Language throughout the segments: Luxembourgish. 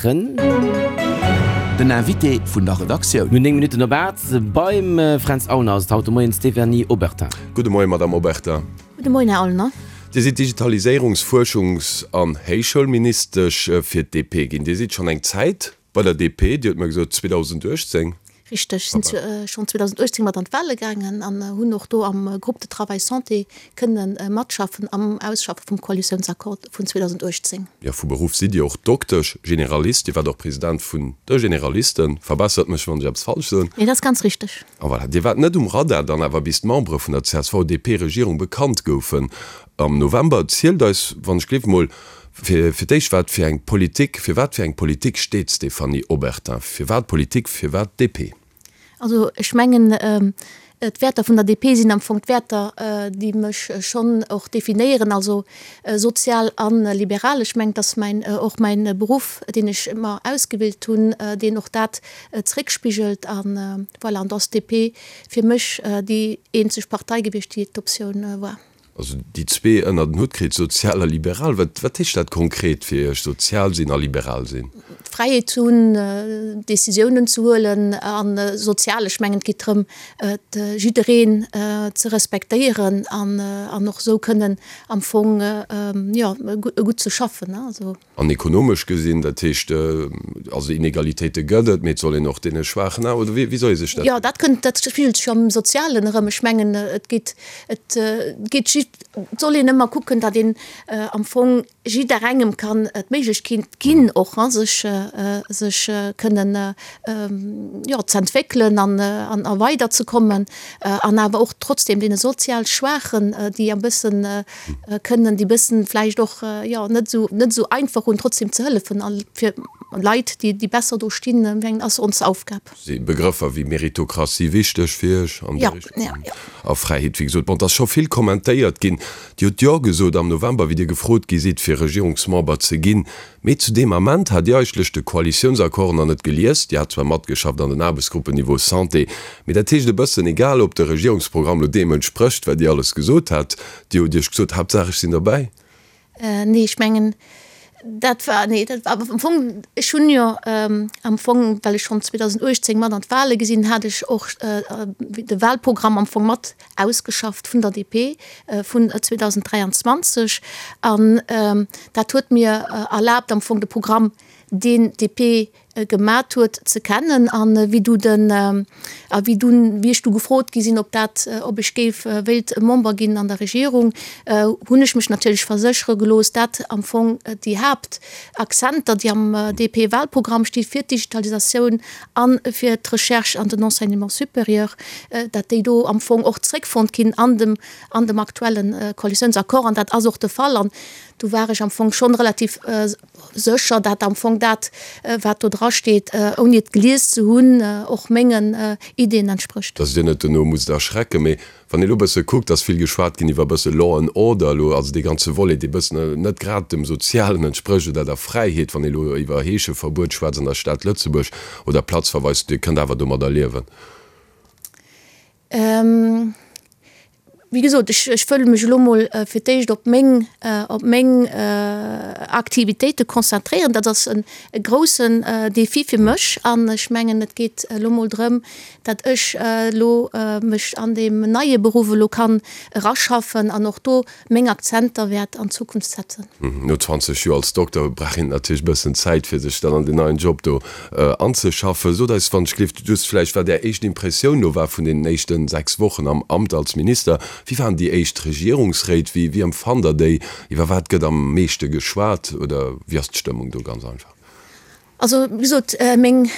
maachen. Den Invité vun der Redaktioun. No 9 Minutten op 8 beim Fränz Aulner ass et haut de Moien d'Stéphanie Obertin. Gudde Moien, Madamm Obertin. Gudde Moien, Här Aulner. Dir sidd Digitaliséierungs-, Fuerschungs an Héichschoulministesch fir d'DP ginn. Dir sidd schonn eng Zäit bei der DP, Dir hutt mer gesot 2018. Richteg, ech sinn schonn 2018 mat an d'Wale gaangen an hunn och do am Groupe de travail santé kënne matschaffen am Ausschaffe vum Koalitiounsaccord vun 2018. Jo, vu Beruff sidd Dir och Doktesch, Generalist. Dir waart och President vun de Generalisten. Verbessert mech, wann ech eppes falsch soen. Nee, dat ass ganz richteg. A voilà, Dir waart net um Radar dann awer, bis d'Membere vun der CSV-DP-Regierung bekannt goufen am November. Zielt eis, wann ech gleef, mol fir d'éischt, wat fir eng Politik, fir wat fir eng Politik steet d'Stéphanie Obertin? Firwat Politik, firwat DP? Also ech mengen, d'Wäerter vun der DP sinn am Fong d'Wäerter, déi mech schonn och definéieren, also sozial a liberal. Ech mengen, et ass mäin, och mäin Beruff, deen ech mer ausgewielt hunn, deen och dat zeréckspigelt. A voilà, an do ass d'DP fir mech déi eenzeg Partei gewiescht, déi d'Optioun war. Also déi zwee ënnert en Hutt kritt, sozial a liberal. Wat, wat heescht dat konkret fir Iech, sozial sinn a liberal sinn? D'Fräiheet ze hunn, Decisiounen ze huelen a sozial, ech mengen et geet drëm, jiddereen ze respektéieren an och esou kënnen am Fong, jo, gutt ze schaffen. An ekonomesch gesinn, dat heescht, also Inegalitéite gëtt et, mee et soll een och deene Schwaachen awer, oder wéi soll ee sech dat. Jo, dat kënnt, dat spigelt sech jo am Sozialen erëm. Ech mengen, et geet, et geet just, et soll een ëmmer kucken, datt een am Fong jidderengem kann d'Méiglechkeet ginn, och sech, sech kënnen, jo, z'entwéckelen an, an a weiderzekommen an awer och trotzdem deene sozial Schwaachen, déi e bëssen, kënnen déi bëssen vläicht och jo net esou net esou einfach hunn, trotzdem ze hëllefen a fir Leit déi déi besser do stinn, mengen ass ons Aufgab. Si Begrëffer wéi Meritokratie wichteg fir Iech an der Richtung? Jo, jo. A Fräiheet, wéi gesot. Bon, et ass scho vill kommentéiert ginn. Dir hutt Jo gesot am November, wéi Dir gefrot gi sidd, fir Regierungsmember ze ginn. Mee zu deem Ament hat Dir eigentlech de Koalitiounsaccord nach net gelies. Dir hat zwar matgeschafft an den Aarbechtsgruppen Niveau Santé, mee dat heescht e bëssen, egal ob de Regierungsprogramm lo deem entsprécht, wat Dir alles gesot hat, Dir hutt Iech gesot, Haaptsaach ech sinn derbäi. Nee, ech mengen, dat war, nee, dat war am Fong, ech hunn jo am Fong, well ech schonn 2018 mat an d'Wale gesinn, hat ech och de Wahlprogramm am Fong mat ausgeschafft vun der DP vun 2023 an dat huet mir erlaabt am Fong de Programm, deen d'DP gemat huet, ze kennen. An wéi du den a wéi dunn, wéi ech du gefrot gi sinn, ob dat, ob ech géif wéilt Member ginn an der Regierung, hunn ech mech natierlech verséchere gelooss, dat am Fong déi Haaptakzenter, déi am DP-Wahlprogramm sti fir d'Digitalisatioun a fir d'Recherche an den Enseignement supérieur, dat déi do am Fong och zréckfonnt ginn an dem, an dem aktuelle Koalitiounsaccord. An dat ass och de Fall. An do war ech am Fong schonn relativ sécher, dat am Fong dat, wat do drasteet, ouni et gelies ze hunn, och mengen Ideeën entsprécht. Dass Dir net dono musst erschrecken, mee Wann ee lo bësse kuckt, ass vill geschwat ginn iwwer bësse Law and Order elo, also dee ganze Volet, dee bëssen net grad dem Sozialen entsprécht oder der Fräiheet, wann ee lo iwwer Heescheverbuet schwätzt an der Stad Lëtzebuerg oder Platzverweis, Dir kënnt awer domadder liewen? Wéi gesot, ech, ech wëll mech elo mol fir d'éischt op meng, op meng Aktivitéite konzentréieren. Dat ass e groussen Défi fir mech an ech mengen, et geet elo mol drëm, dat ech elo mech an deem neie Beruff elo kann eraschaffen an och do meng Akzenter wäert an Zukunft setzen. No 20 Joer als Dokter brauch een natierlech e bëssen Zäit, fir sech dann an deen neien Job do anzeschaffen. Sot eis wann ech gleeft just vläicht, wat Är éischt Impressioun elo war vun deenen éischten 6 Wochen am Amt als Minister. Wéi waren déi éischt Regierungsréit? Wéi empfannt Der déi? Iwwer wat gëtt am meeschte geschwat oder wéi ass d'Stëmmung do ganz einfach? Also, wéi gesot, meng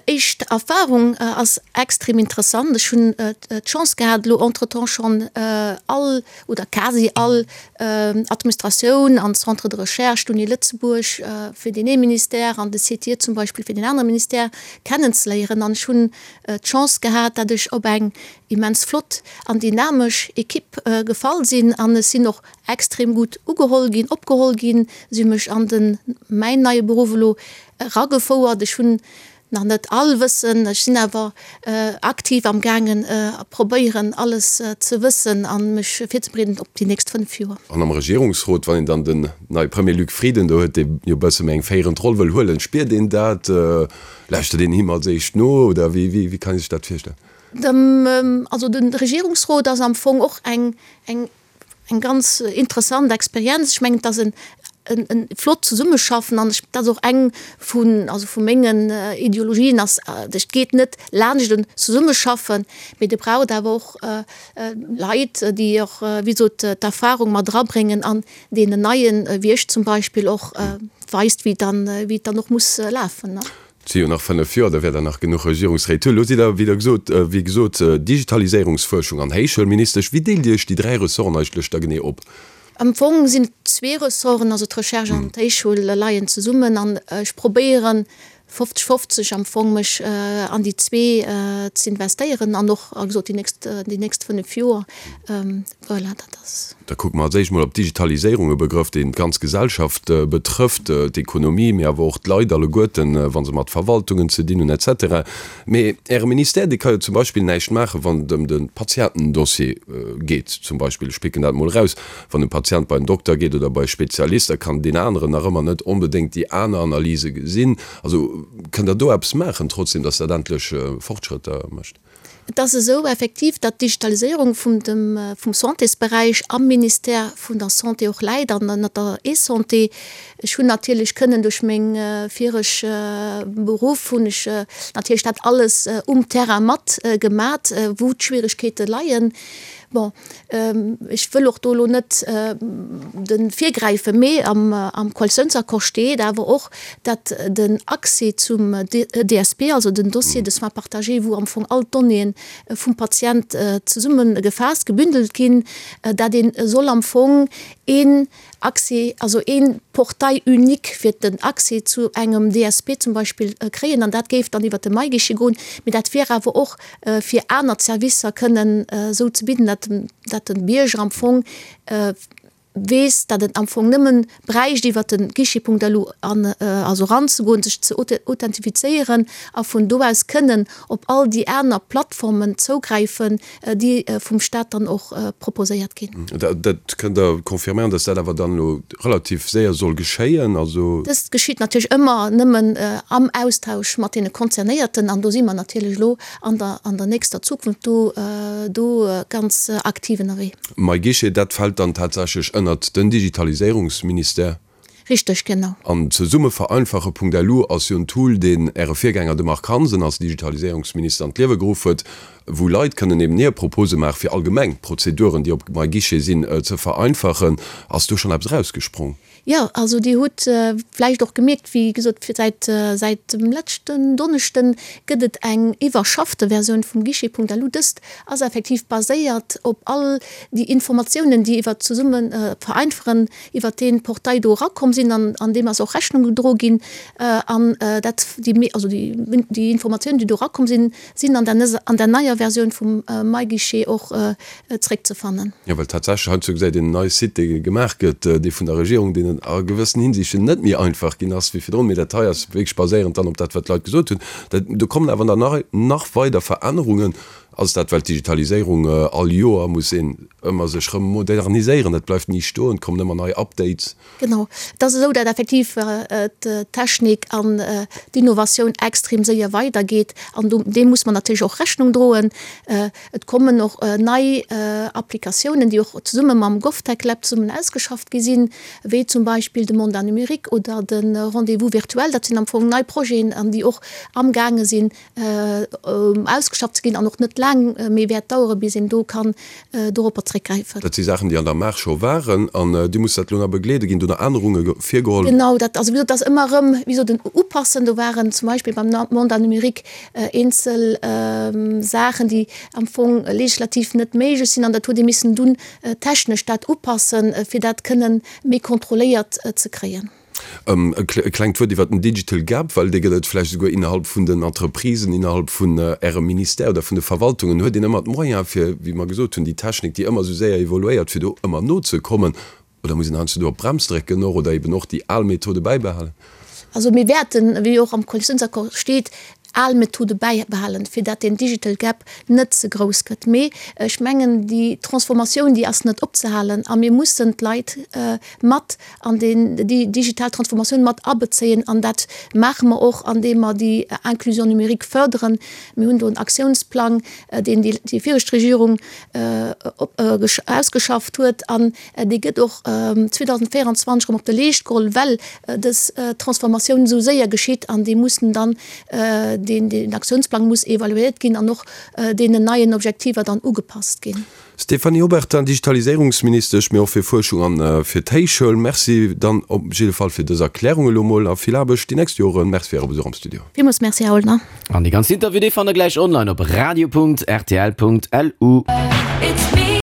éischt Erfahrung ass extrem interessant. Ech hunn d'Chance gehat, elo entretemps schonn all oder quasi all Administratioun an Centres de recherche, d'Uni Lëtzebuerg fir deen ee Ministère an de CTIE zum Beispill fir deen anere Ministère kennenzeléieren. An ech hunn d'Chance gehat, datt ech op eng immens flott an dynamesch Equipe gefall sinn an ech sinn och extrem gutt ugeholl ginn, opgeholl ginn. Si hu mech an den, mäin neie Beruff elo eragefouert. Ech hunn. nach net all wëssen. Ech sinn awer aktiv am gaangen a probéieren alles ze wëssen a mech virzebereeden op déi nächst 5 Joer. An am Regierungsrot, wann een dann den neie Premier Luc Frieden do huet, dee jo e bësse méi eng féierend Roll wëll huelen, spiert een dat? Lauschtert een him als éischt no oder wéi kann ee sech dat virstellen? Also de Regierungsrot ass am Fong och eng eng eng ganz interessant Experienz. Ech mengen, et ass en en flott Zesummeschaffen an ech, dat ass och eng vun, also vu mengen Ideologien ass, et geet net laanscht en Zesummeschaffen, mee et braucht awer och Leit, déi och, wéi gesot, d'Erfahrung mat erabréngen an deenen Neien, wéi ech zum Beispill, och weist, wéi dann, wéi et dann och muss lafen. Et si jo nach 5 Joer, da wäert Der nach genuch Regierungsréit hunn. Elo sidd Der, wéi Der gesot, wéi gesot, Digitaliséierungsfuerschung an Héichschoulministesch. Wéi deelt Dir Iech déi 3 Ressorten eigentlech da genee op? Am Fong sinn et zwee Ressorten, also d'Recherche an d'Héichschoul leien zesummen an ech probéieren 50, 50 am Fong mech an déi zwee z'investéieren an och, wéi gesot, déi nächst, déi nächst 5 Joer. Voilà, dat ass. Da kucke mer als éischt mol op d'Digitaliséierung, e Begrëff, deen d'ganz Gesellschaft betrëfft, d'Ekonomie, mee awer och d'Leit alleguerten, wa se mat Verwaltungen ze dinn hunn, et cetera. Mee Äre Ministère, dee ka jo zum Beispill näischt maachen, wann et ëm de Patientendossier geet zum Beispill. Ech picken dat mol eraus. Wann e Patient bei en Dokter geet oder bei e Spezialist, da kann deen aneren nach ëmmer net onbedéngt déi aner Analyse gesinn. Also kënnt Der do eppes maachen trotzdem, datt dat endlech Fortschrëtter mécht? Et ass esou effektiv, datt d'Digitaliséierung vum dem, vum Santésberäich am Ministère vun der Santé och läit an ënnert der eSanté. Ech hunn natierlech kënnen duerch meng vireg Beruff hunn ech natierlech dat alles um Terrain mat gemat, wou d'Schwierigkeete leien. Bon, ech wëll och do elo net de virgräifen, mee am Koalitiounsaccord steet awer och, datt den Accès zum DSP, also den Dossier de soins partagé, wou am Fong all d'Donnéeën vum Patient zesummegefaasst, gebündelt ginn, dat ee soll am Fong een Accès, also ee Portail unique fir den Accès zu engem DSP zum Beispill kréien. An dat géif dann iwwert de MyGuichet goen. Mee dat wier awer och fir aner Servicer kënnen esou ze bidden, datt de Bierger am Fong weess, datt en am Fong nëmmen bräicht iwwert de Guichet.lu an also eranzegoen, sech ze authentifizéieren a vun do aus kënnen op all déi aner Plattformen zougräifen, déi vum Staat dann och proposéiert ginn. Dat kënnt Der confirméieren, datt dat awer dann elo relativ séier soll geschéien? Also. Dëst geschitt natierlech ëmmer nëmmen am Austausch mat deene Concernéierten an do si mer natierlech elo an der an der nächster Zukunft do do ganz aktiv ënnerwee. MyGuichet, dat fält dann tatsächlech ënnert den Digitaliséierungsministère? Richteg, genau. An zesummevereinfache.lu ass jo en Tool, deen Äre Virgänger, de Marc Hansen, als Digitaliséierungsminister an d'Liewe geruff huet, wou Leit kënnen eben hir Propose maachen, fir allgemeng Prozeduren, déi op MyGuichet sinn, ze vereinfachen. Ass do schonn eppes erausgesprong? Jo, also Dir hutt vläicht och gemierkt, wéi gesot, säit säit dem leschten Donneschden gëtt et eng iwwerschaffte Versioun vum Guichet.lu. Dëst ass effektiv baséiert op all déi Informatiounen, déi iwwert zesumme vereinfachen iwwert dee Portail do erakomm sinn an an deem ass och Rechnung gedro ginn an dat déi also déi déi Informatiounen, déi do erakomm sinn, sinn an der an der neier Versioun vum MyGuichet och zréckzefannen. Jo, well tatsächlech heiansdo gesäit een en neie Site, dee gemaach gëtt, dee vun der Regierung, deen a gewëssen Hinsichten net méi einfach ginn ass wéi virdrun, mee dat hei ass wierklech baséierend dann op dat, wat d'Leit gesot hunn. Dat do kommen awer dann nach nach weider Verännerungen. Ass dat, well d'Digitaliséierung all Joer muss een ëmmer sech rëm moderniséieren, dat bleift ni stoen, et kommen ëmmer nei Updates. Genau, et ass esou, dat effektiv d'Technik an d'Innovatioun extrem séier weidergeet an do deem muss mer natierlech och Rechnung droen. Et kommen och nei Applikatiounen, déi och zesumme mam GovTech Lab zesummen ausgeschafft gi sinn, wéi zum Beispill de Mandat numérique oder de Rendez-vous virtuel. Dat sinn am Fong nei Projeten an déi och amgaange sinn ausgeschafft ze ginn an och net laang méi wäert dauere bis een do kann doropper zréckgräifen. Dat si Saachen, déi an der Maach scho waren an Dir musst dat elo nach begleeden. Ginn do nach Ännerunge virgeholl? Genau, dat ass, wéi gesot, dat ass ëmmer erëm, wéi gesot, en Upassen. Do waren zum Beispill beim Mandat numérique eenzel Saachen, déi am Fong legislativ net méiglech sinn an dat huet ee missen dunn technesch dat upassen, fir dat kënnen méi kontrolléiert ze kréien. E klengt Wuert iwwert den Digital Gap, well dee gëtt et vläicht esouguer innerhalb vun den Entreprisen, innerhalb vun Ärem Ministère oder vun de Verwaltungen. Huet een ëmmer d'Moyens, fir, wéi mer gesot hunn, déi Technik, déi ëmmer esou séier evoluéiert, fir do ëmmer nozekommen? Oder muss een heiansdo do op d'Brems drécken och oder eben och déi al Methode bäibehalen? Also mir wäerten, wéi och am Koalitiounsaccord steet, al Methode bäibehalen, fir dat deen Digital Gap net ze grouss gëtt. Mee ech mengen, déi Transformatioun, déi ass net opzehalen a mir mussen d'Leit mat an deen, déi digital Transformatioun mat abezéien an dat maache mer och, andeem mer déi Inclusion numérique förderen. Mir hunn do en Aktiounsplang, deen déi viregt Regierung ausgeschafft huet an dee gëtt och 2024 erëm op de Leescht geholl, well dës Transformatioun esou séier geschitt an déi mussen dann, deen Aktiounsplang muss evaluéiert ginn an och deenen neien Objektiver dann ugepasst ginn. Stéphanie Obertin, Digitaliséierungsministesch, mee och fir Fuerschung an fir d'Héichschoul, Merci dann op jidde Fall fir dës Erklärung elo mol a vill Aarbecht déi nächst Joren. Merci fir Äre Besuch am Studio. Villmools Merci, Här Oldner. An dee ganzen Interview, dee fannt der gläich online op radio.rtl.lu.